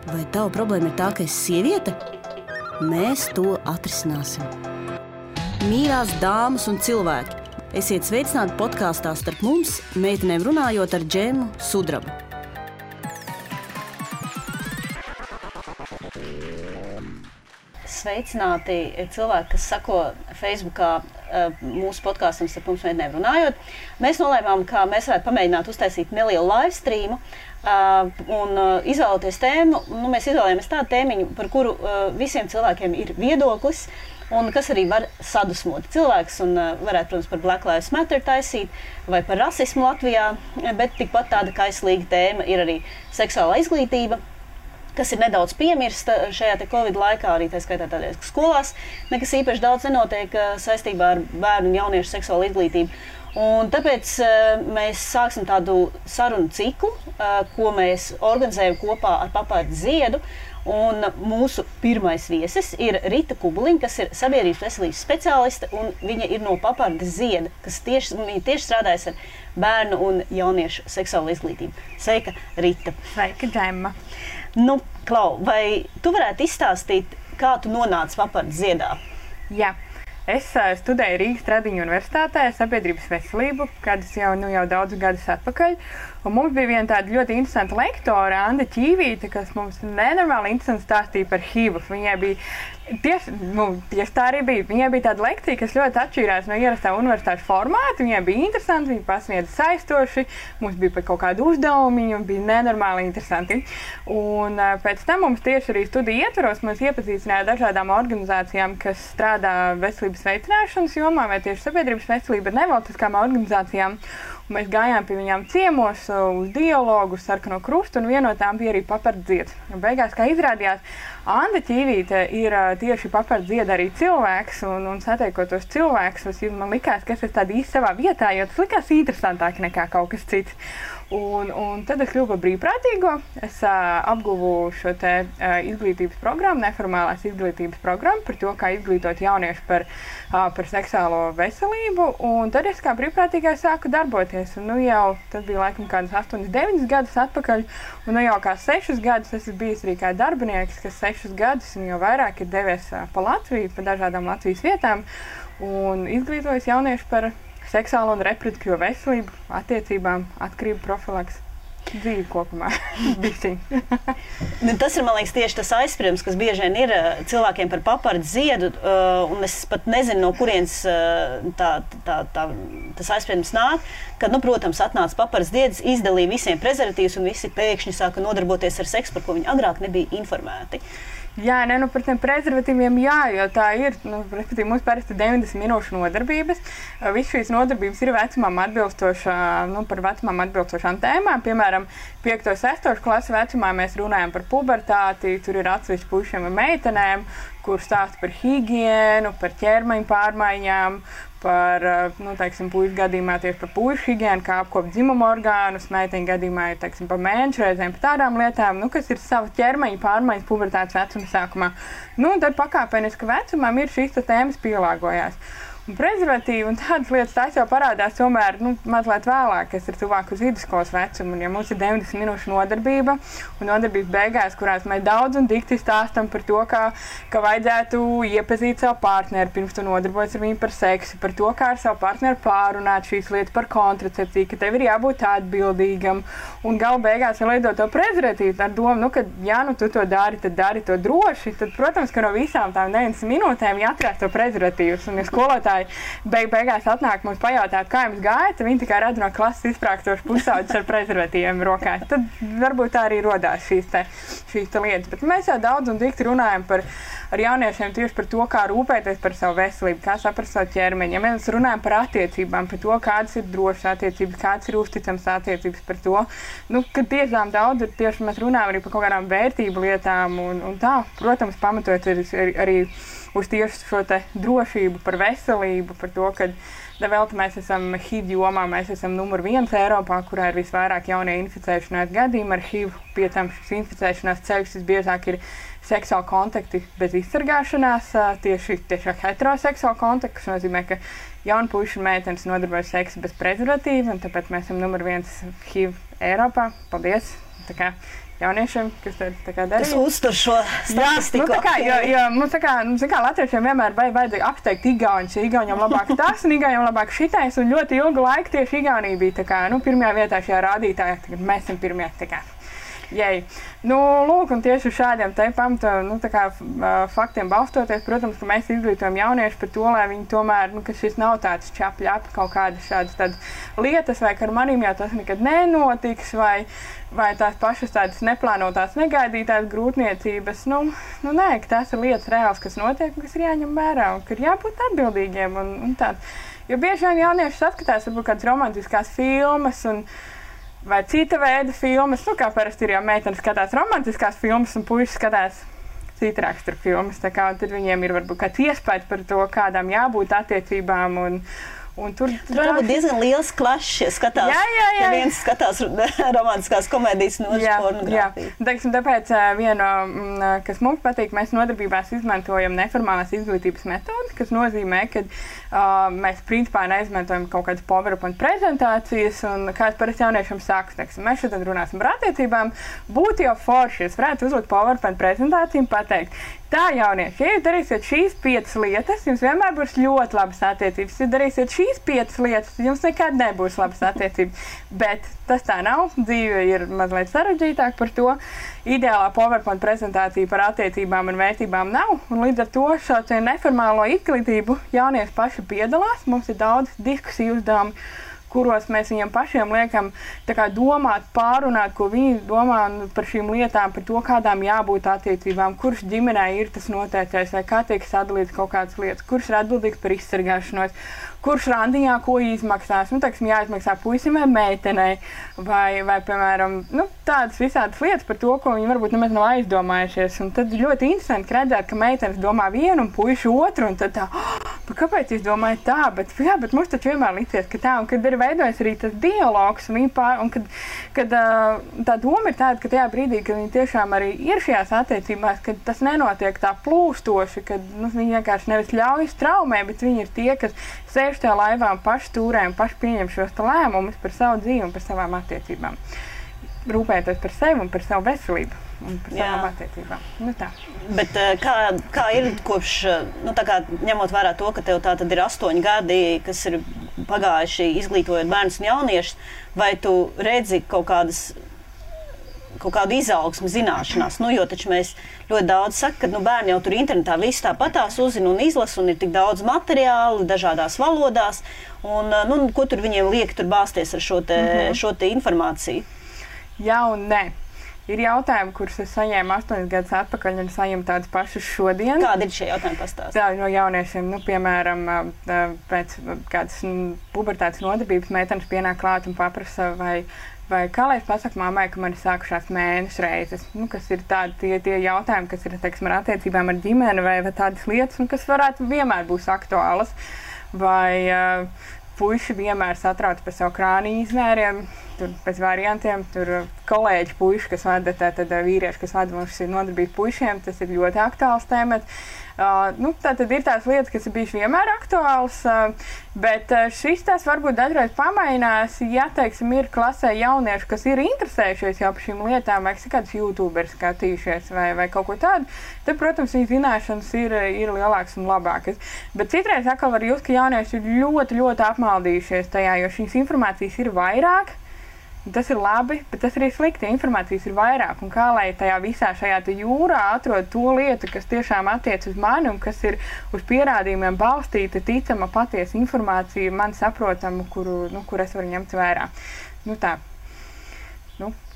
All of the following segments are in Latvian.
Vai tava problēma ir tā, ka esi sieviete? Mēs to atrisināsim. Mīļās dāmas un cilvēki, esiet sveicināti podkāstā Starp mums, meitenēm runājot ar Džemu Sudrabu. Sveicināti cilvēki, kas sako Facebookā mūsu podkāstam Starp mums, meitenēm runājot. Mēs nolēmām, ka mēs varētu pamēģināt uztaisīt nelielu live streamu un izvēloties tēmu. Mēs izvēlējāmies tādu tēmiņu, par kuru visiem cilvēkiem ir viedoklis un kas arī var sadusmot cilvēks un varētu, protams, par Black Lives Matter taisīt vai par rasismu Latvijā, bet tikpat tāda kaislīga tēma ir arī seksuālā izglītība, kas ir nedaudz piemirsta šajā te Covid laikā, arī tā skaitā tādēļ, ka skolās nekas īpaši daudz nenotiek saistībā ar bērnu un jauniešu seksuālu izglītību. Un tāpēc mēs sāksim tādu sarunu ciklu, ko mēs organizējam kopā ar Papardi Ziedu. Un mūsu pirmais viesis ir Rita Kubuliņa, kas ir sabiedrības veselības speciāliste, un viņa ir no Papardi Zieda, kas tieši strādājas ar bērnu un jauniešu seksuālu izglītību. Sveika, Rita! Sveika, Džemma! Nu, Klau, vai tu varētu izstāstīt, kā tu nonāci Papardi Ziedā? Jā. Es studēju Rīgas Tradiņu universitātē sabiedrības veselību, kādus jau daudzus gadus atpakaļ. Un mums bija viena tāda ļoti interesanta lektore, Anda Ķīvīte, kas mums nenormāli interesanti stāstīja par HIV. Viņai bija tieši tā arī bija. Viņai bija tāda lekcija, kas ļoti atšķīrās no ierastā universitāšu formāta. Viņai bija interesanti, viņa pasniedza saistoši, mums bija pat kaut kādi uzdevumi, un bija nenormāli interesanti. Un pēc tam mums tieši arī studiju ietvaros mums iepazīstināja dažādām organizācijām, kas strādā veselības veicināšanas jomā vai tieši sabiedrības veselība ar nevalstiskām organizācijām. Un mēs gājām pie viņām ciemos uz dialogu, uz Sarkano Krustu, un viena no tām bija arī Papardi Zieds. Beigās, kā izrādījās, Anda Ķīvīte ir tieši Papardi Zieda arī cilvēks, un satiekotos cilvēks, man likās, ka es esmu tāda īsti savā vietā, jo tas likās interesantāk nekā kaut kas cits. Un tad es kļuvu par brīvprātīgo. Es apguvu šo te izglītības programmu, neformālās izglītības programmu par to, kā izglītot jauniešu par seksuālo veselību. Un tad es kā brīvprātīgais sāku darboties. Un jau tas bija laikam kādas 8-9 gadus atpakaļ. Un jau kā 6 gadus es esmu bijis arī kā darbinieks, kas 6 gadus un jau vairāk ir devies pa Latviju, pa dažādām Latvijas vietām. Un izglītojis jauniešu par seksuālo un reproduktīvo veselību, attiecībām, atkarību profilaks, dzīvi kopumā. Tas ir, man liekas, tieši tas aizspriedums, kas bieži vien ir cilvēkiem par Papardi Ziedu, un es pat nezinu, no kurienes tas aizspriedums nāk, kad, protams, atnāca Papardi Zieds, izdalīja visiem prezervatīvus, un visi pēkšņi sāka nodarboties ar seksu, par ko viņi agrāk nebija informēti. Jā, par tiem prezervatīviem jā, jo tā ir, respektīvi, mums parasti 90 minūšu nodarbības. Viss šīs nodarbības ir vecumam par vecumam atbilstošām tēmām. Piemēram, 5. un 6. klases vecumā mēs runājam par pubertāti, tur ir atsevišķi puišiem un meitenēm, kur stāsta par higiēnu, par ķermeņa pārmaiņām, par, puišu gadījumā tieši par puišu higiēnu, kā apkopt dzimumu orgānus, meiteņu gadījumā ir, par mēnešu reizēm, par tādām lietām, kas ir sava ķermeņa pārmaiņas pubertātes vecuma sākumā. Tad pakāpeniski vecumam ir šīs tēmas pielāgojās. Un prezervatīvi un tādas lietas tās jau parādās tomēr mazliet vēlāk, kas ir tuvāk uz vidusskolas vecumu. Un ja mums ir 90 minūšu nodarbība un nodarbības beigās, kurās mēs daudz un dikti stāstam par to, ka vajadzētu iepazīt savu partneri, pirms tu nodarbojas ar viņu par seksu, par to, kā ar savu partneri pārunāt šīs lietas par kontracepciju, ka tev ir jābūt atbildīgam. Un gala beigās vēl liedot to prezervatīvu ar domu, ka ja tu to dari, tad dari to droši. Tad, protams, ka no visām tām 90 minūtēm jāatrās to prezervatīvus. Un ja skolotāji beigās atnāk mums pajautāt, kā jums gāja, tad viņi tikai redz no klases izprākstošu pusauģus ar prezervatīviem rokās. Tad varbūt tā arī rodās šīs lietas. Bet mēs jau daudz un dikti runājam ar jauniešiem tieši par to, kā rūpēties par savu veselību, kā saprast savu ķermeņu. Ja mēs runājam par attiecībām, par to, kādas ir drošas attiecības, kādas ir uzticamas attiecības, par to, ka tiešām daudz ir tieši mēs runājam arī par kaut kādām vērtību lietām un tā, protams, pamatot arī uz tieši šo te drošību, par veselību, par to, ka vēl mēs esam HIV jomā, mēs esam numur 1 Eiropā, kurā ir visvairāk jaunie inficēšanās gadījumi ar HIV. Pie tam šis inficēšanās ceļš visbiežāk ir seksuāli kontakti bez izsargāšanās, tieši heteroseksuāli kontakti, kas nozīmē, ka jauni puiši un meitenes nodarbojas seksu bez prezervatīva, un tāpēc mēs esam numur 1 HIV Eiropā. Paldies! tā kā jauniešiem, kas tā kā darīja. Tas uztur šo statistiku. Jā, tā kā, jo mums tā kā latviešiem vienmēr vajadzēja apsteigt igauņus, jo igauņiem labāk tas un igauņiem labāk šitais, un ļoti ilgu laiku tieši Igaunija bija tā kā, pirmajā vietā šajā rādītājā, tagad mēs esam pirmie, tā kā. Jei. Lūk, un tieši uz šādiem te pamata, faktiem balstoties, protams, ka mēs izglītojam jaunieši par to, lai viņi tomēr, ka šis nav tāds čapļapi kaut kādas šādas lietas, vai ka ar manīm jau tas nekad nenotiks, vai tās pašas tādas neplānotās, negaidītās grūtniecības. Nē, ka tās ir lietas reāls, kas notiek, kas ir jāņem vērā, un ka ir jābūt atbildīgiem un tā. Jo bieži vien jaunieši saskatās, varbūt kādas romantiskās filmas vai cita veida filmas, kā parasti ir, ja meitenes skatās romantiskās filmas un puiši skatās cita rakstura filmas, tā kā tad viņiem ir varbūt kāds iespējas par to, kādām jābūt attiecībām un tur varbūt diezgan liels klašs, ja skatās, ja viens skatās romantiskās komēdijas no pornogrāfiju. Jā, tāpēc viena, kas mums patīk, mēs nodarbībās izmantojam neformālās izglītības metodi, kas nozīmē, ka mēs principā neizmantojam kaut kādas PowerPoint prezentācijas, un kāds parasti jauniešiem saka, teiksim, mēs šodien runāsim par attiecībām, būtu jau forši, es varētu uzlikt PowerPoint prezentāciju un pateikt, tā, jaunieši, ja jūs darīsiet šīs 5 lietas, jums vienmēr būs ļoti labas attiecības. Ja darīsiet šīs 5 lietas, jums nekad nebūs labas attiecības. Bet tas tā nav. Dzīve ir mazliet sarežģītāk par to. Ideālā PowerPoint prezentācija par attiecībām un vērtībām nav. Un līdz ar to šo neformālo izglītību jaunieši paši piedalās. Mums ir daudz diskusiju uzdevumi, kuros mēs viņiem pašiem liekam domāt, pārunāt, ko viņi domā par šīm lietām, par to, kādām jābūt attiecībām, kurš ģimenē ir tas noteiktais, vai kā tiek sadalīts kaut kādas lietas, kurš ir atbildīgs par izsargāšanos, kurš randiņā ko izmaksās, jāizmaksā puisim vai meitenei, vai piemēram, tādas visādas lietas par to, ko viņi varbūt nemaz nav aizdomājušies. Un tad ļoti interesanti redzēt, ka meitenes domā vienu un puiši otru, un tad tā, kāpēc jūs domājat tā, bet mums taču vienmēr licies, ka tā, un kad ir veidojas arī tas dialogs, un kad tā doma ir tāda, ka tajā brīdī, kad viņi tiešām arī ir šajās attiecībās, kad tas nenotiek tā plūstoši, kad viņi vienkārši nevis ļaujas traumē, bet viņi ir tie, kas sēž tajā laivā un paši stūrē un paši pieņem šos lēmumus par savu dzīvi un par savām attiecībām. Rūpēties par sevi un par savu veselību un par savām attiecībām. Tā. Bet kā ir kopš, ņemot vērā to, ka tev tā tad ir 8 gadi, kas ir pagājuši izglītojot bērnus un jauniešus, vai tu redzi kaut kādu izaugsmu zināšanās, jo taču mēs ļoti daudz saka, ka bērni jau tur internetā visu tāpatās uzzina un izlasa, un ir tik daudz materiālu dažādās valodās, un ko tur viņiem liek tur bāzties ar šo te informāciju? Jā un nē. Ir jautājumi, kurus es saņēmu 8 gadus atpakaļ, un saņemu tādus pašus šodien. Kādi ir šie jautājumi pastāstīt? Tā no jauniešiem, piemēram, pēc kādas pubertātes nodarbības meitenes pienāk klāt un paprasa, vai kā lai es pasaku mammai, ka man ir sākušās mēnešu reizes, kas ir tādi tie jautājumi, kas ir, teiksim, ar attiecībām ar ģimeni vai tādas lietas, kas varētu vienmēr būs aktuālas. Vai puiši vienmēr satrauc par savu krāniņu izmēriem, tur pēc variantiem, tur kolēģi puiši, kas vada, tad vīrieši, kas vada mums nodarbību puišiem, tas ir ļoti aktuāls temats. Tātad ir tās lietas, kas ir bijušas vienmēr aktuāls, bet šis tās varbūt dažreiz pamainās, ja, teiksim, ir klasē jaunieši, kas ir interesējušies jau par šīm lietām, vai kāds YouTubers skatījušies vai kaut ko tādu, tad, protams, viņa zināšanas ir lielākas un labākas. Bet citreiz atkal var just, ka jaunieši ir ļoti, ļoti apmaldījušies tajā, jo šīs informācijas ir vairāk. Tas ir labi, bet tas arī slikti. Informācijas ir vairāk. Un kā lai tajā visā šajā jūrā atrod to lietu, kas tiešām attiec uz mani un kas ir uz pierādījumiem balstīta, ticama, patiesa informācija, man saprotama, kur es varu ņemt vērā. Tā.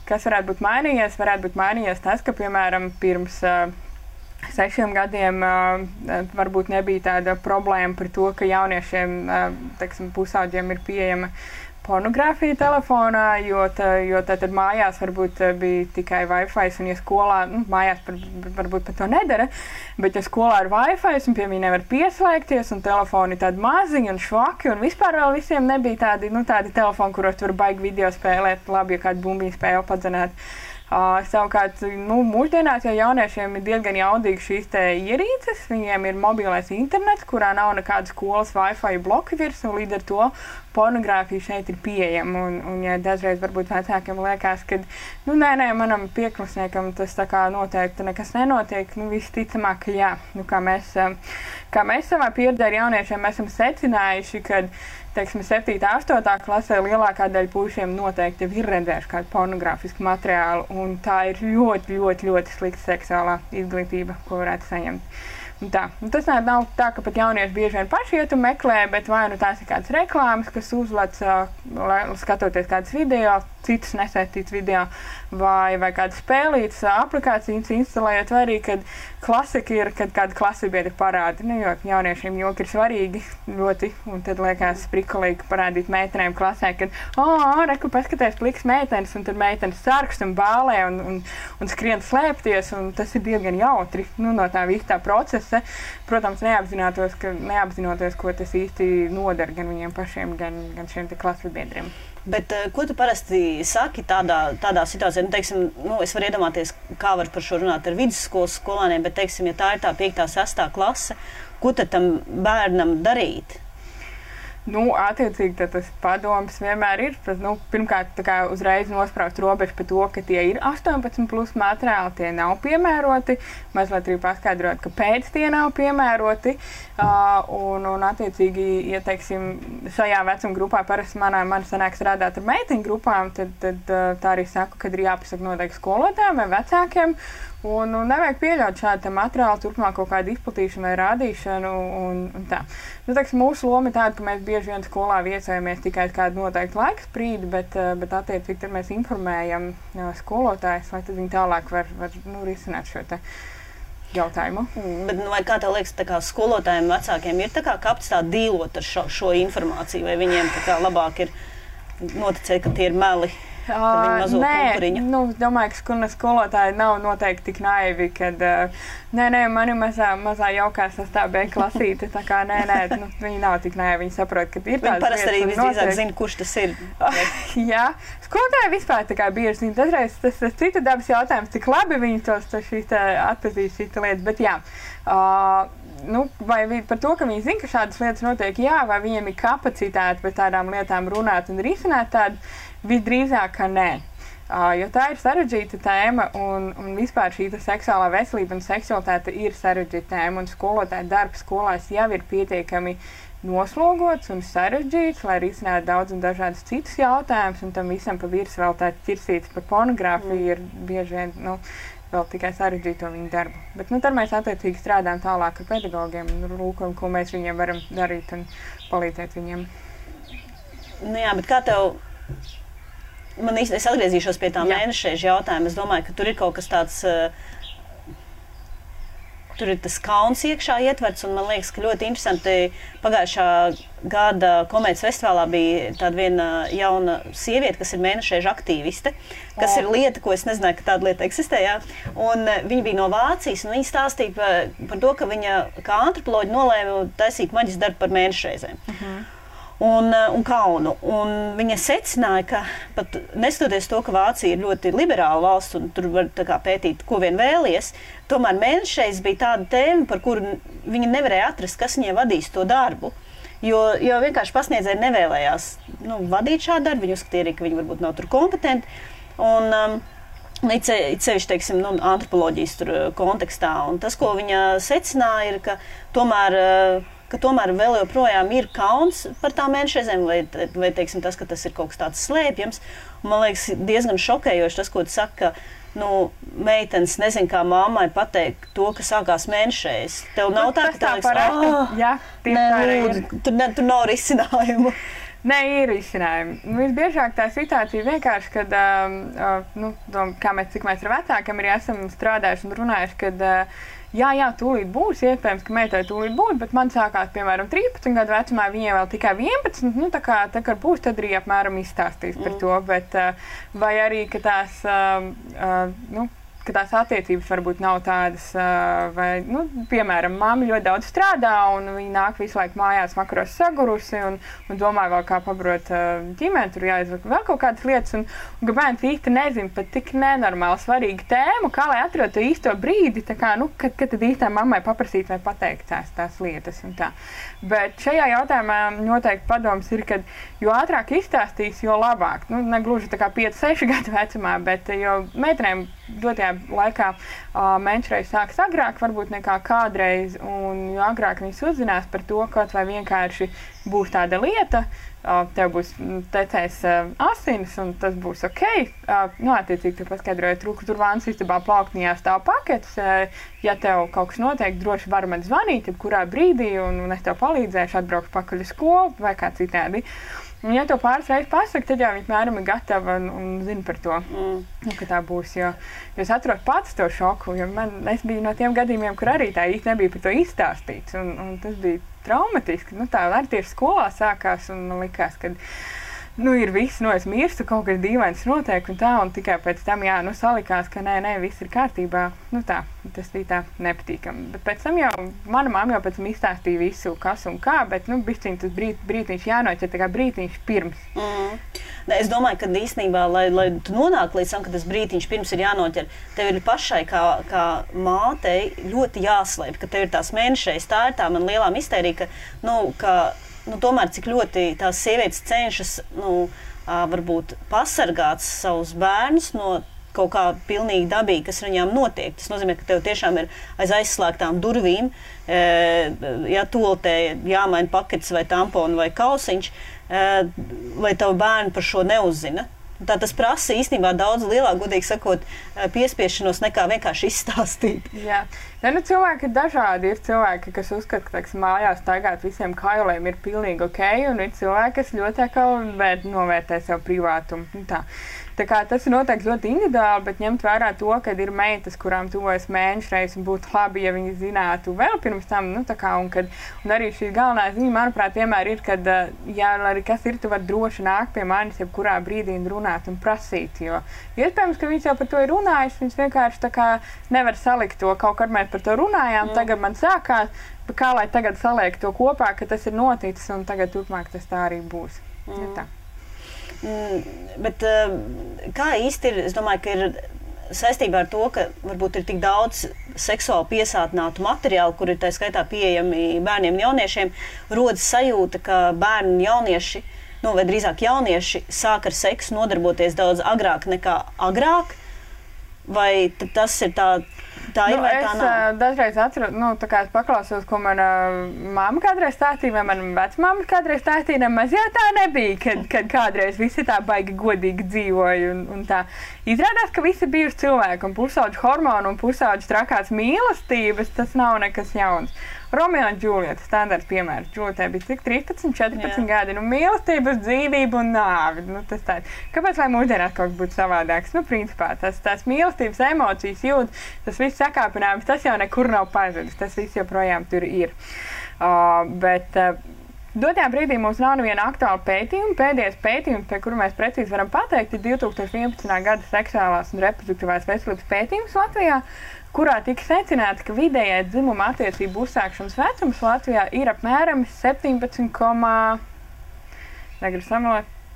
Kas varētu būt mainījies? Varētu būt mainījies tas, ka, piemēram, pirms 6 gadiem varbūt nebija tāda problēma par to, ka jauniešiem, teiksim, pusaudžiem ir pieejama pornogrāfija telefonā, jo tad mājās varbūt bija tikai Wi-Fi, un ja skolā, mājās varbūt pat to nedara, bet ja skolā ir Wi-Fi, un pie viņa nevar pieslēgties, un telefoni tādi maziņi un švaki, un vispār vēl visiem nebija tādi telefoni, kuros tu var baigi video spēlēt, labi, ja kādu bumbiņu spēli padzenēt. Savukārt, mūsdienās jau jauniešiem ir diezgan jaudīgi šīs te ierīces, viņiem ir mobilais internets, kurā nav nekādas skolas Wi-Fi bloki virs, un līdz ar to pornogrāfija šeit ir pieejama. Un ja dažreiz varbūt vecākiem liekas, ka, nē, manam pieklasniekam tas tā kā noteikti nekas nenotiek, visticamāk, ka jā. Kā mēs savā pieredzē ar jauniešiem esam secinājuši, ka, teiksim, 7. 8. klasē lielākā daļa puišiem noteikti ir redzējuši kādu pornogrāfisku materiālu, un tā ir ļoti, ļoti, ļoti slikta seksuālā izglītība, ko varētu saņemt. Tas nav tā, ka pat jaunieši bieži vien paši iet un meklē, bet vai tās ir kādas reklāmas, kas uzlec, skatoties kādas video, citus nesaistīts video, vai kādas spēlītas aplikācijas instalējot, vai arī, kad klasika ir, kad kāda klasibiedra parāda. Jo jauniešiem joki ir svarīgi ļoti, un tad liekas prikolīgi parādīt meitenēm klasē, kad, reku, paskaties pliks meitenes, un tad meitenes sarkst un bālē un skrien slēpties, un tas ir diezgan jautri, no tā visa tā procesa. Protams, neapzinoties, ko tas īsti nodara gan viņiem pašiem, gan šiem te klasibiedriem. Bet ko tu parasti saki tādā situācijā? Teiksim, es varu iedomāties, kā var par šo runāt ar vidusskolas skolāniem, bet, teiksim, ja tā ir tā 5. 6. klase, ko tad tam bērnam darīt? Attiecīgi tas padoms vienmēr ir. Pirmkārt, uzreiz nospraust robežu par to, ka tie ir 18+ materiāli, tie nav piemēroti. Mazliet arī paskaidrot, kāpēc tie nav piemēroti. Un attiecīgi, ja, teiksim, šajā vecuma grupā parasti man sanāk strādāt ar meiteņu grupām, tad tā arī saku, kad ir jāpasaka noteikti skolotājiem vai vecākiem. Un nevajag pieļaut šādu materiālu turpmāk kaut kādu izplatīšanu vai rādīšanu. Un tā. Mūsu loma ir tāda, ka mēs bieži vien skolā viesojamies tikai kādu noteiktu laika sprīdi, bet attiecīgi tad mēs informējam skolotājus, lai tad viņi tālāk var risināt šo te jautājumu. Bet, vai kā tev liekas, skolotājiem vecākiem ir kapacitāte dīlot ar šo informāciju, vai viņiem labāk ir noticēt, ka tie ir meli? Nē, es domāju, ka skolotāji nav noteikti tik naivi, kad man ir mazā jaukā 6. B klasīte, tā kā viņi nav tik naivi, viņi saprot, ka ir tādas lietas. Viņi parasti arī visdrīzāk zina, kurš tas ir. Jā, skolotāji vispār tā kā bieži zina, dažreiz tas cita dabas jautājums, cik labi viņi atpazīst šīs lietas, bet jā. Vai par to, ka viņi zina, ka šādas lietas notiek, jā, vai viņiem ir kapacitāte par tādām lietām runāt un risināt tādu, visdrīzāk, ka nē. Jo tā ir sarežģīta tēma, un vispār šī seksuālā veselība un seksualitāte ir sarežģīta tēma, un skolotāja darbs skolās jau ir pietiekami noslogots un sarežģīts, lai risinātu daudz un dažādus citus jautājumus, un tam visam pa virs vēl tāds ķirsīts par pornogrāfiju ir bieži vien, vēl tikai sarežģīto viņu darbu. Bet tad mēs attiecīgi strādājam tālāk ar pedagogiem un lūkam, ko mēs viņiem varam darīt un palīdzēt viņiem. Jā, bet kā tev... Es atgriezīšos pie tā mēnešreižu jautājuma. Es domāju, ka tur ir kaut kas tāds, tur ir tas kauns iekšā ietverts, un man liekas, ka ļoti interesanti pagājušā gada komēdijas festivālā bija tāda viena jauna sieviete, kas ir mēnešreižu aktīviste, kas ir lieta, ko es nezināju, ka tāda lieta eksistē, jā. Un viņa bija no Vācijas, un viņa stāstīja par to, ka viņa kā antropoloģi nolēma taisīt maģistra darbu par mēnešreizēm. Un kaunu. Un viņa secināja, ka pat neskatoties to, ka Vācija ir ļoti liberāla valsts un tur var pētīt, ko vien vēlies, tomēr mēnešreiz bija tāda tēma, par kuru viņa nevarēja atrast, kas viņai vadīs to darbu. Jo vienkārši pasniedzēji nevēlējās vadīt šādu darbu, viņi uzskatīja arī, ka viņi varbūt nav tur kompetenti. Un it sevišķi, teiksim, antropoloģijas tur kontekstā. Un tas, ko viņa secināja, ir, ka tomēr vēl joprojām ir kauns par tām mēnešreizēm, vai teiksim, tas, ka tas ir kaut kas tāds slēpjams. Un, man liekas, diezgan šokējoši tas, ko tu saki, ka meitenes nezin, kā mammai pateikt to, ka sākās mēnešreiz. Tev nav tā, ka tā liekas, tur nav risinājumu. Nē, ir izcinājumi. Visbiežāk tā situācija vienkārši, kad, cik mēs ar vecākiem arī esam strādājuši un runājuši, kad jā, tūlīt būs, iespējams, ka meitai tūlīt būs, bet man sākās, piemēram, 13 gadu vecumā, viņiem vēl tikai 11, tā kā būs, tad arī apmēram izstāstīs par to, bet vai arī, ka tās, ka tās attiecības varbūt nav tādas, vai, nu, piemēram, mamma ļoti daudz strādā, un viņa nāk visu laiku mājās vakaros sagurusi, un domā vēl kā pabarot ģimeni, tur jāizvaka vēl kaut kādas lietas, un ka bērns īsti nezin pat tik nenormāli svarīgu tēmu, kā lai atrod to īsto brīdi, tā kā, nu, kad tad īstā mammai paprasīt vai pateikt tās lietas un tā. Bet šajā jautājumā noteikti padoms ir, ka jo ātrāk izstāstīs, jo labāk. Nu, negluži tā kā 5-6 gadu vecumā, bet jo meitenēm dotajā laikā menšreiz sāks agrāk, varbūt nekā kādreiz, un jo agrāk viņas uzzinās par to, kaut vai vienkārši būs tāda lieta, tev būs tecējis asinis, un tas būs ok. Nu, attiecīgi, tu paskaidroji, tur vānas istabā plauktiņā stāv paketes. Ja tev kaut kas notiek, droši var man zvanīt, kurā brīdī, un es tev palīdzēšu, atbraukšu pakaļ uz skolu vai kā citādi. Un, ja to pāris reizes pasaka, tad jau viņa mēram ir gatava un zina par to, ka tā būs. Jo es atrodu pats to šoku, jo es biju no tiem gadījumiem, kur arī tā īsti nebija par to izstāstīts. Un tas bija traumatiski. Nu, tā arī tieši skolā sākās un man likās, ka nu, ir viss, es mirstu, kaut kas dīvains notiek un tā, un tikai pēc tam, salikās, ka nē, viss ir kārtībā. Nu tā, tas bija tā nepatīkami. Bet pēc tam jau, mana mamma jau pēc tam izstāstīja visu, kas un kā, bet, nu, bišķiņ tas brītiņš jānoķer, tā kā brītiņš pirms. Es domāju, ka īstenībā, lai tu nonāk līdz tam, ka tas brītiņš pirms ir jānoķer, tev ir pašai kā mātei ļoti jāslēp, ka tev ir tās mēnešreiz. Tā ir tā man lielā mistērija, ka tomēr cik ļoti tās sievietes cenšas, varbūt pasargāt savus bērnus no kaut kā pilnīgi dabīgi, kas viņām notiek. Tas nozīmē, ka tev tiešām ir aiz aizslēgtām durvīm, toltē jāmaina paketes vai tamponi vai kausiņš, lai tavu bērnu par šo neuzzina. Tā tas prasa īstenībā daudz lielāk, godīgi sakot, piespiešanos nekā vienkārši izstāstīt. Jā. Cilvēki ir dažādi. Ir cilvēki, kas uzskata, ka mājās staigāt visiem kailiem ir pilnīgi ok, un ir cilvēki, kas ļoti novērtē savu privātumu. Tā kā tas ir noteikti ļoti individuāli, bet ņemt vērā to, ka ir meitas, kurām tuvojas mēnešreiz, un būtu labi, ja viņi zinātu vēl pirms tam, un arī šī galvenā ziņa, manuprāt, vienmēr ir, kad, arī kas ir, tu vari droši nākt pie manis, jebkurā brīdī un runāt un prasīt, jo iespējams, ka viņas jau par to ir runājis, viņas vienkārši tā kā nevar salikt to, kaut kad mēs par to runājām, tagad man sākās, bet kā lai tagad saliek to kopā, ka tas ir noticis, un tagad turpmāk tas tā arī būs. Tā. Bet kā īsti ir, es domāju, ka ir saistībā ar to, ka varbūt ir tik daudz seksuāli piesātinātu materiālu, kur ir tā skaitā pieejami bērniem un jauniešiem, rodas sajūta, ka bērni un jaunieši, vai drīzāk jaunieši sāk ar seksu nodarboties daudz agrāk nekā agrāk, vai tas ir tā ir vai tā nav? Es dažreiz atceros, tā kā es paklausos, ko mana mamma kādreiz stāstīja, vai mana vecmamma kādreiz stāstīja, nemaz jau tā nebija, kad kādreiz visi tā baigi godīgi dzīvoja un tā. Izrādās, ka visi bijuši cilvēki un pusauģu hormonu un pusauģu trakās mīlestības, tas nav nekas jauns. Romeo un Džulieta, standarts piemērs. Džulietē bija cik 13, 14 gadi, mīlestības, dzīvība un nāvi. Tas tāds. Kāpēc, lai mūsdienās kaut kas būtu savādāks? Principā, tās mīlestības emocijas jūt, tas viss sakāpinājums, tas jau nekur nav pazudis, tas viss joprojām tur ir. Bet dotajā brīdī mums nav neviena aktuāla pētījuma. Pēdējais pētījums, pie kura mēs precīzi varam pateikt, ir 2011. gada seksuālās un reproduktīvās veselības pētījums Latvijā, kurā tika secināts, ka vidējais dzimuma attiecību uzsākšanas vecums Latvijā ir apmēram 17,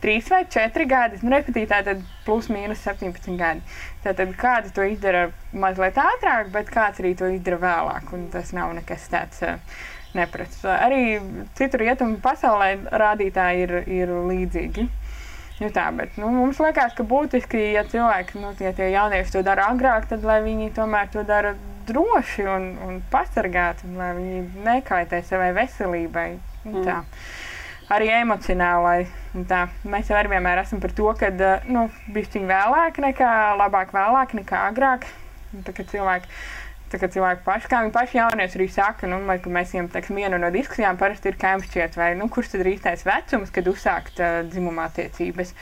3 vai 4 gadi. Respektīvi, tātad plus mīnus 17 gadi. Tātad kāds to izdara mazliet ātrāk, bet kāds arī to izdara vēlāk, un tas nav nekas tāds neprasts. Arī citur rietumu pasaulē rādītāji ir līdzīgi. Bet mums liekas, ka būtiski, ja cilvēki, ja tie jaunieši to dara agrāk, tad lai viņi tomēr to dara droši un pasargāti, lai viņi nekaitē savai veselībai. Tā. Arī emocionālai. Tā. Mēs jau arī vienmēr esam par to, ka bišķiņ labāk vēlāk nekā agrāk. Tā kā cilvēki paši, kā viņi paši jaunieši arī saka, ka mēs viņiem, viena no diskusijām parasti ir, kā jums šķiet, vai, kurš tad ir īstais vecums, kad uzsākt dzimuma attiecības.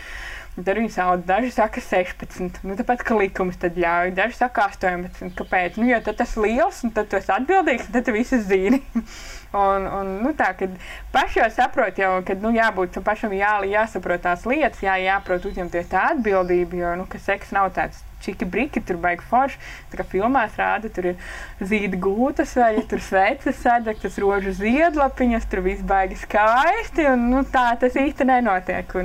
Un tad viņi sauc, daži saka 16, tāpēc, ka likums tad ļauj, daži saka 18, kāpēc? Jo tad tas liels, un tad tu esi atbildīgs, un tad tu visu zini. Un tā, kad paši jau saprot, kad jābūt pašam jāsaprot tās lietas, jāprot uzņemties tā atbildība, jo, ka seks nav tāds čiki briki, tur baigi forši. Tā kā filmās rāda, tur ir zīda gūtas vai tur sveces sadegtas rožu ziedlapiņas, tur viss baigi skaisti, un nu, tā tas īsti nenotiek.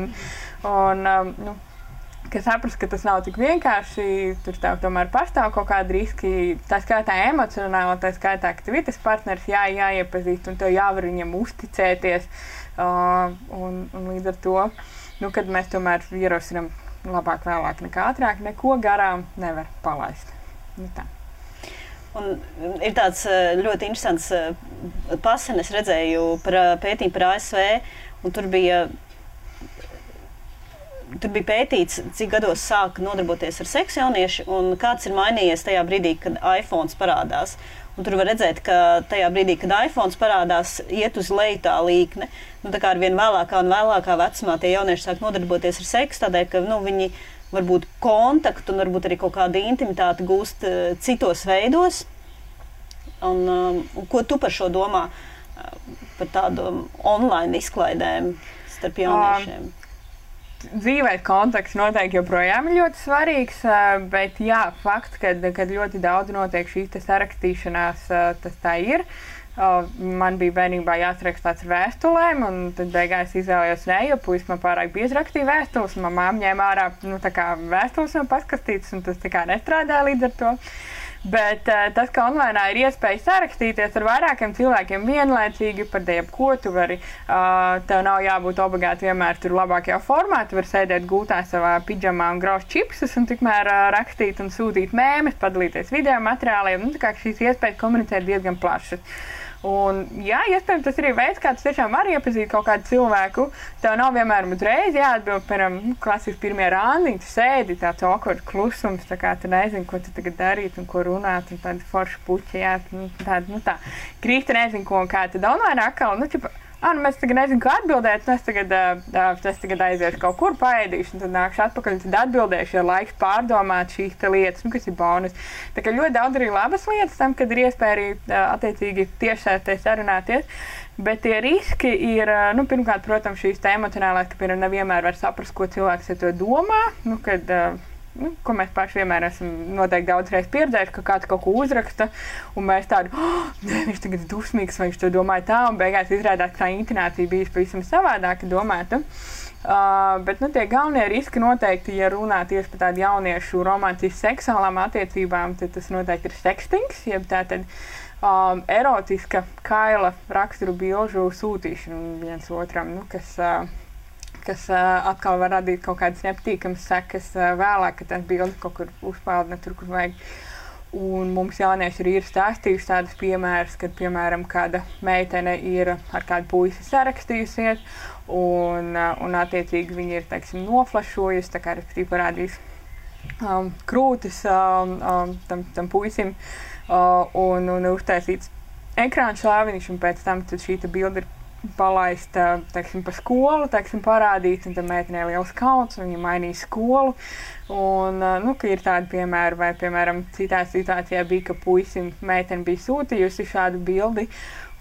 Ka saprast, ka tas nav tik vienkārši, tur tomēr pastāv kaut kādi riski, tā skaitā emocionāli, tā skaitā, ka tev ir tas partneris jāiepazīst un tev jāvar viņam uzticēties. Un līdz ar to, kad mēs tomēr ierosinām labāk vēlāk nekā ātrāk, neko garām nevar palaist. Tā. Un ir tāds ļoti interesants pasen, es redzēju pētījumu par ASV, un tur bija pētīts, cik gados sāka nodarboties ar seksu jaunieši un kāds ir mainījies tajā brīdī, kad iPhones parādās. Un tur var redzēt, ka tajā brīdī, kad iPhones parādās, iet uz leju tā līkne. Tā kā ar vien vēlākā un vēlākā vecumā tie jaunieši sāk nodarboties ar seksu, tādēļ, ka viņi varbūt kontaktu un varbūt arī kaut kādu intimitāti gūst citos veidos. Un ko tu par šo domā, par tādu online izklaidēm starp jauniešiem? Dzīvē kontakts noteikti joprojām ir ļoti svarīgs, bet jā, fakts, kad ļoti daudz notiek šīs sarakstīšanās, tas tā ir. Man bija bērnībā jāsaraksta tāds ar vēstulēm, un tad beigās izvēlējos jo puisis man pārāk bieži rakstīja vēstules, un mamma ņēma ārā vēstules no paskastītes, un tas nestrādāja līdz ar to. Bet tas, ka online ir iespēja sarakstīties ar vairākiem cilvēkiem vienlaicīgi par jebko, tu vari, tev nav jābūt obligāti vienmēr tur labākajā formā, tu vari sēdēt gultā savā pidžamā un grauzt čipsus un tikmēr rakstīt un sūtīt mēmes, padalīties video materiāliem, tā kā šīs iespējas komunicēt diezgan plašas. Un, jā, iespējams, tas ir veids, kā tu tiešām vari iepazīt kaut kādu cilvēku. Tev nav vienmēr uzreiz jāatbild, piemēram, klasiski pirmie randiņi, tu sēdi, tāds awkward klusums, tā kā tu nezini, ko tu tagad darīt un ko runāt, un tādi forši puķi, jā, tā. Krīsti nezinu, ko un kā, tad online atkal, mēs tagad nezinu, ko atbildēt, es tagad aiziešu kaut kur paēdīšu, un tad nākšu atpakaļ, un tad atbildēšu, ja laiks pārdomāt šīs lietas, kas ir bonus. Tā kā ļoti daudz arī labas lietas tam, kad ir iespēja arī attiecīgi tiešsaistē sarunāties, bet tie riski ir, pirmkārt, protams, šīs emocionālās, ka, piemēram, nevienmēr var saprast, ko cilvēks ar to domā, ko mēs paši vienmēr esam noteikti daudzreiz pieredzējuši, ka kāds kaut ko uzraksta, un mēs tādu, viņš tagad ir dusmīgs, vai viņš to domāja tā, un beigās izrādās, ka tā intonācija bija pavisam savādāka domāta. Bet tie galvenie riski noteikti, ja runā tieši par tādu jauniešu romantisku seksuālām attiecībām, tad tas noteikti ir sekstings, jeb tātad erotiska kaila raksturu bilžu sūtīšana viens otram, kas atkal var radīt kaut kādas nepatīkamas sekas vēlāk, kad tās bildes kaut kur uzpeld ne tur, kur vajag. Un mums jaunieši arī ir stāstījuši tādus piemērus, kad, piemēram, kāda meitene ir ar kādu puisi sarakstījusies, un attiecīgi viņi ir, teiksim, noflašojusi, tā kā respektīvi parādījis krūtis tam puisim, un uztaisīts ekrāna šāviņš, un pēc tam šī bilde ir palaista, teiksim, pa skolu, teiksim, parādīt, un tad meitenē liels kauns, un viņa mainīja skolu. Un, ka ir tādi piemēri, vai, piemēram, citā situācijā bija, ka puisim meitene bija sūtījusi šādu bildi,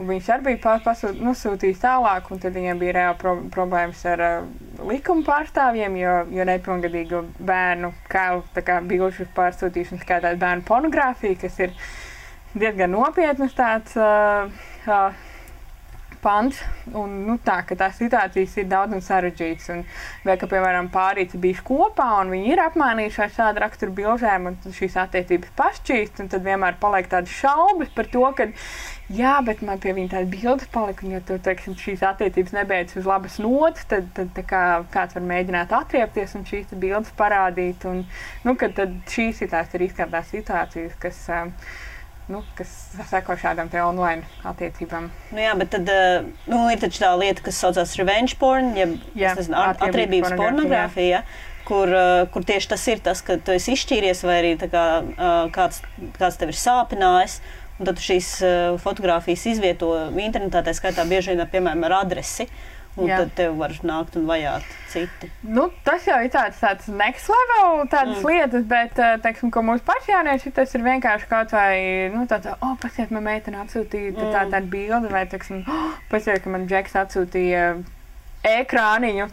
un viņš arī bija sūtījis tālāk, un tad viņiem bija reāli problēmas ar likuma pārstāvjiem, jo nepilngadīgu bērnu kailu bilžu pārsūtīšanu skaitās bērnu pornogrāfija, kas ir diezgan nopietnas tāds pants, un ka tās situācijas ir daudz un sarežģītas. Vai, ka, piemēram, pārīti bijuši kopā, un viņi ir apmainījuši ar šādu raksturu bilžēm, un šīs attiecības pašķīst, un tad vienmēr paliek tādas šaubas par to, ka jā, bet man pie viņa tāda bildes palika, un ja tur, teiksim, šīs attiecības nebeidzas uz labas notas, tad kāds var mēģināt atriepties un šīs bildes parādīt, un, tad šīs ir tās riskantās situācijas, kas seko šādām te online attiecībām. Jā, bet tad ir taču tā lieta, kas saucās revenge porn, atriebības pornogrāfija, kur tieši tas ir tas, ka tu esi izšķīries vai arī kāds tev ir sāpinājis, un tad tu šīs fotogrāfijas izvieto internetā, tā skaitā bieži vien, piemēram, ar adresi. Un tad tev var nākt un vajāt citi. Tas jau ir tāds next level lietas, bet, teiksim, ko mūsu paši jaunieši, tas ir vienkārši kaut vai, pasiet, man meitene atsūtīja tādu bildi, vai, teiksim, pasiet, ka man džeks atsūtīja ekrāniņu,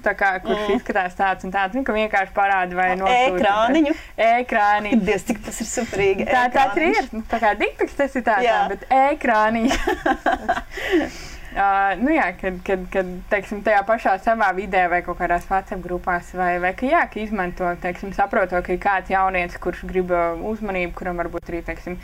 kurš izskatās tāds un tāds, ka vienkārši parāda vai nosūta. Ekrāniņu? Ekrāniņu. Dievs, cik tas ir superīgi. Tā arī ir. Tā kā dikpiks tas ir tāds, bet ekrāniņu. Kad teiksim, tajā pašā savā vidē vai kaut kādās WhatsApp grupās vai ka izmanto, teiksim, saprotot, ka ir kāds jaunietis, kurš grib uzmanību, kuram varbūt arī, teiksim,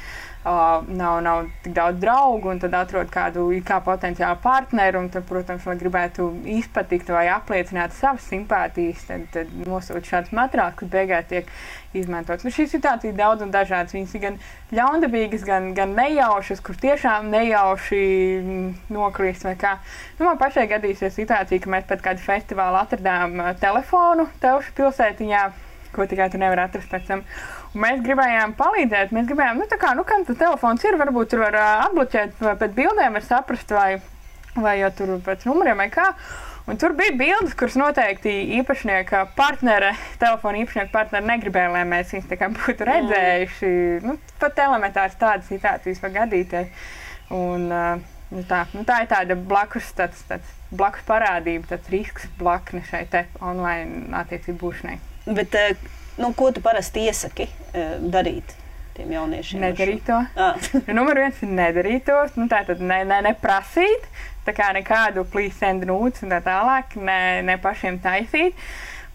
nav tik daudz draugu, un tad atrod kādu kā potenciālu partneru, un tad, protams, lai gribētu izpatikt vai apliecināt savas simpātijas, tad nosūta šāds materiāls, kas beigās tiek izmantots. Šīs situācijas daudz un dažādas. Viņas ir gan ļaundabīgas, gan nejaušas, kur tiešām nejauši nokrist vai kā. Man pašai gadīsies situācija, ka mēs pēc kādu festivālu atradām telefonu Telšu pilsētiņā, ko tikai tu nevar atrast pēc tam. Un mēs gribējām palīdzēt, kam tas telefons ir, varbūt tur var atbloķēt, pēc bildēm var saprast, vai jau tur pēc numuriem vai kā. Un tur bija bildes, kuras noteikti īpašnieka partnere, telefona īpašnieka partnere negribēja, lai mēs viņus tā kā būtu redzējuši. Pat elementārs tādas situācijas var gadīties. Un tā ir tāda blakus parādība, tāds risks blakne šai te online attiecību būšanai. Bet ko tu parasti iesaki darīt tiem jauniešiem? Nedarīt to. Numur 1 ir nedarīt to. Tātad neprasīt. Tā kā nekādu please send nudes un tā tālāk, ne pašiem taisīt.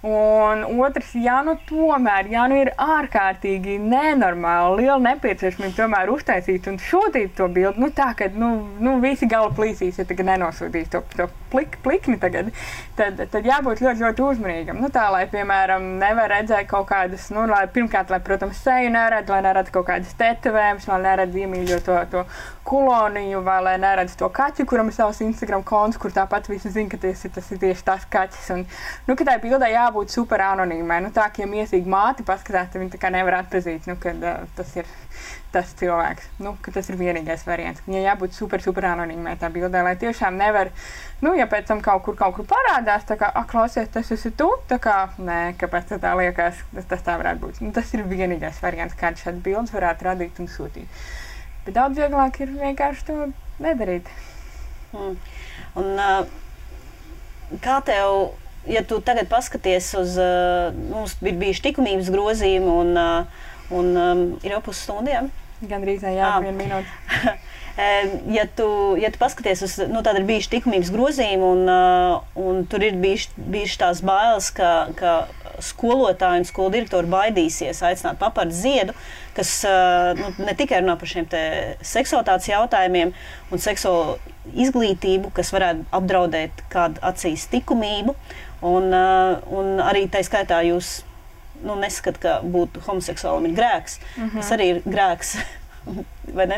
Un otrs, ja ir ārkārtīgi nenormāli, liela nepieciešamība tomēr uztaisīt un sūtīt to bildi, tā, ka visi gala plīsīs, ja tagad nenosūtīs to plikni tagad, tad jābūt ļoti, ļoti uzmanīgam. Tā, lai, piemēram, nevar redzēt kaut kādas, pirmkārt, lai, protams, seju neredz, lai neredz kaut kādas tetovējumus, lai neredz iemīļo to kuloniņu, vai lai neredz to kaķi, kuram ir savs Instagram konts, kur tāpat visi zina, ka tas ir tieši tas kaķis. Un, ka tai bildē jābūt super anonīmai. Tā, ka ja miesīgi māti paskatās, tad viņi tā kā nevar atpazīt, kad tas ir tas cilvēks. Ka tas ir vienīgais variants. Viņai jābūt super, super anonīmai tā bildē, lai tiešām nevar, ja pēc tam kaut kur parādās, tā kā, klausies, tas esi tu, tā kā, nē, kāpēc tā liekas, tas tā varētu būt. Tas ir vienīgais variants, kāds šāds bildes varētu radīt un sūtīt. Bet daudz vieglāk ir vienkārši to nedarīt. Un kā tev, ja tu tagad paskaties uz, mums ir bijuši likumības grozījumi un ir jau pusstundiem? Gandrīz, jā, 1 minūte. Ja tu paskaties uz, tad ir bijuši likumības grozījumi un tur ir bijuši tās bailes, ka skolotāji un skolu direktori baidīsies aicināt Papardes Ziedu, kas ne tikai runā par šiem te seksualitātes jautājumiem un seksuālo izglītību, kas varētu apdraudēt kādu acīs likumību, un arī tai skaitā jūs neskat, ka būt homoseksuālam ir grēks, kas arī ir grēks. Vai ne?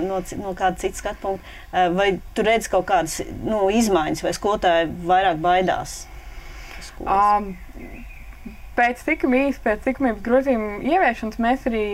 No kāda cita skatu punkta. Vai tu redz kaut kādas izmaiņas, vai skolotāji vairāk baidās? Pēc likumības grozījuma ieviešanas mēs arī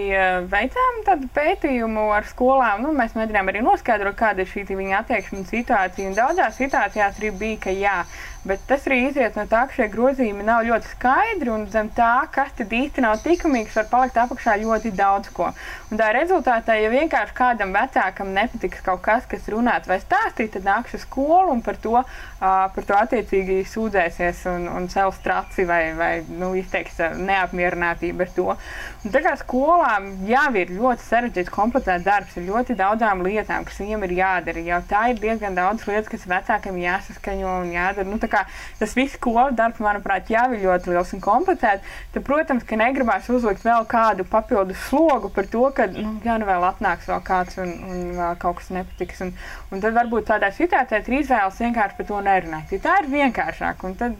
veicām tādu pētījumu ar skolām. Mēs mēģinām arī noskaidrot, kāda ir šī viņa attieksme un situācija. Un daudzās situācijās arī bija, ka jā. Bet tas arī izriet no tā, ka šie grozījumi nav ļoti skaidri, un zem tā, kas tad īsti nav likumīgs, var palikt apakšā ļoti daudz ko. Un tā rezultātā, ja vienkārši kādam vecākam nepatiks kaut kas, kas runāt vai stāstīt, tad nāks uz skolu un par to attiecīgi sūdzēsies un cels traci vai izteiks neapmierinātību ar to. Un tā kā skolām jau ir ļoti sarežģīts, komplicēts darbs ar ļoti daudzām lietām, kas viņiem ir jādara. Jau tā ir diezgan daudz lietas, kas vecākiem jāsaskaņo un jādara. Tas viss skolas darbs, manuprāt, jau ir ļoti liels un komplicēts. Tad, protams, ka negribās uzlikt vēl kādu papildus slogu par to, ka, vēl atnāks vēl kāds un vēl kaut kas nepatiks. Un tad varbūt tādā situācijā ir izvēles vienkārši par to nerunāt. Ja tā ir vienkāršāk, un tad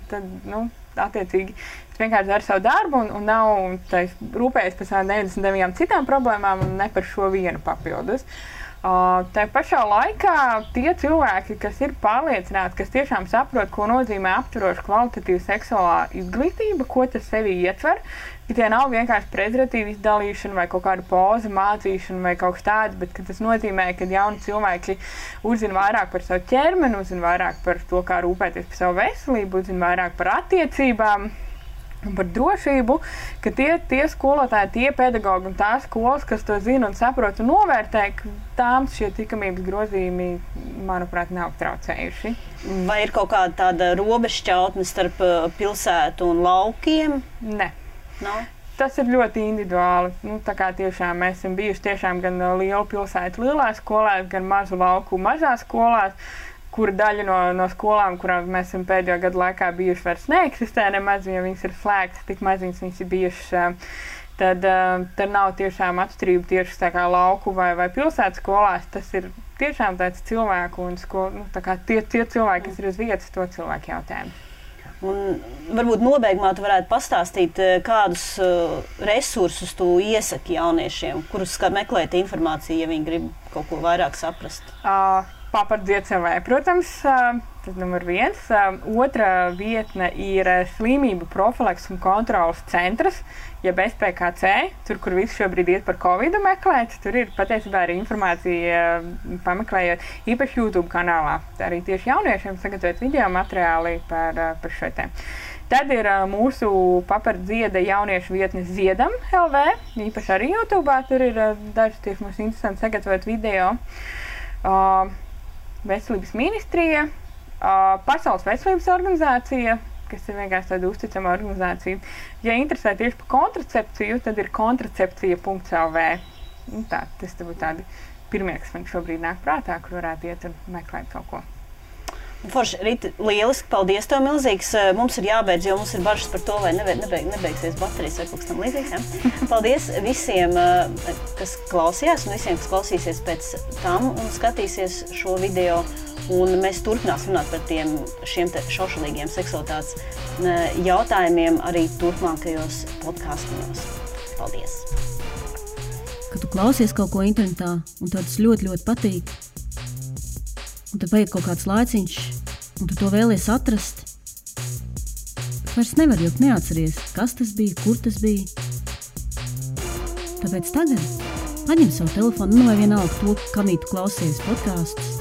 attiecīgi, vienkārši dara savu darbu un nav rūpējies par savām 99 citām problēmām un ne par šo vienu papildus. Tā pašā laikā tie cilvēki, kas ir pārliecināti, kas tiešām saprot, ko nozīmē aptveroša kvalitatīva seksuālā izglītība, ko tas sevi ietver, ka tie nav vienkārši prezervatīvu izdalīšana vai kaut kāda poza mācīšana vai kaut kas tāds, bet ka tas nozīmē, ka jauni cilvēki uzzina vairāk par savu ķermeni, uzzina vairāk par to, kā rūpēties par savu veselību, uzzina vairāk par attiecībām un par drošību, ka tie skolotāji, tie pedagogi un tās skolas, kas to zina un saprot un novērtē, ka tām šie likumības grozījumi manuprāt, nav traucējuši. Vai ir kaut kāda tāda robežšķautne starp pilsētu un laukiem? Ne. No? Tas ir ļoti individuāli. Tā kā tiešām mēs esam bijuši tiešām gan lielu pilsētu lielās skolās, gan mazu lauku mazās skolās, kura daļa no skolām, kurām mēs esam pēdējo gadu laikā bijuši, vairs neeksistē nemaz, ja viņas ir slēgtas, tik maziņas viņas ir bijušas. Tad nav tiešām atšķirība tieši tā kā lauku vai pilsētas skolās. Tas ir tiešām tāds cilvēku un tā kā tie cilvēki, kas ir uz vietas, to cilvēku jautājumu. Un varbūt nobeigumā tu varētu pastāstīt, kādus resursus tu iesaki jauniešiem, kurus meklēt informāciju, ja viņi grib kaut ko vairāk saprast? Papardziet savai, protams, tas numur 1. Otra vietne ir slimību profilaks un kontrolas centrs, jeb SPKC, tur, kur visi šobrīd iet par Covidu meklēt. Tur ir patiesībā arī informācija pameklējot īpaši YouTube kanālā. Arī tieši jauniešiem sagatavot video materiāli par šo tēmu. Tad ir mūsu papardzieda jauniešu vietne Ziedam LV, īpaši arī YouTube. Tur ir daži tieši mums interesanti sagatavot video. Veselības ministrija, Pasaules veselības organizācija, kas ir vienkārši tāda uzticama organizācija. Ja interesē tieši par kontracepciju, tad ir kontracepcija.lv. Tas būtu tādi pirmie, kas man šobrīd nāk prātā, kur varētu iet un meklēt kaut ko. Forši, Rita, lieliski, paldies tev milzīgs. Mums ir jābeidz, jo mums ir bažas par to, vai nebeigsies baterijas vai kaut kas tam līdzīgs. Ja? Paldies visiem, kas klausījās, un visiem, kas klausīsies pēc tam un skatīsies šo video. Un mēs turpināsim runāt par šiem šaušalīgiem seksualitātes jautājumiem arī turpmākajos podkastos. Paldies! Kad tu klausies kaut ko internetā, un tev tas ļoti, ļoti patīk, un tad paiet kaut kāds laiciņš, un tu to vēlies atrast, vairs nevar, jo neatceries, kas tas bija, kur tas bija. Tāpēc tagad paņem savu telefonu, vai vienalga to, kamī tu klausies podkastus.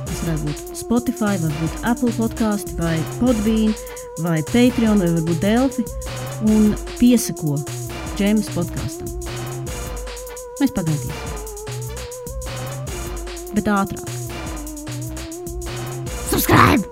Tas varētu būt Spotify, varbūt Apple podkasti, vai Podbean, vai Patreon, vai varbūt Delfi, un piesako Džēmas podkastam. Mēs pagaidīsim. Bet ātrāk. Subscribe!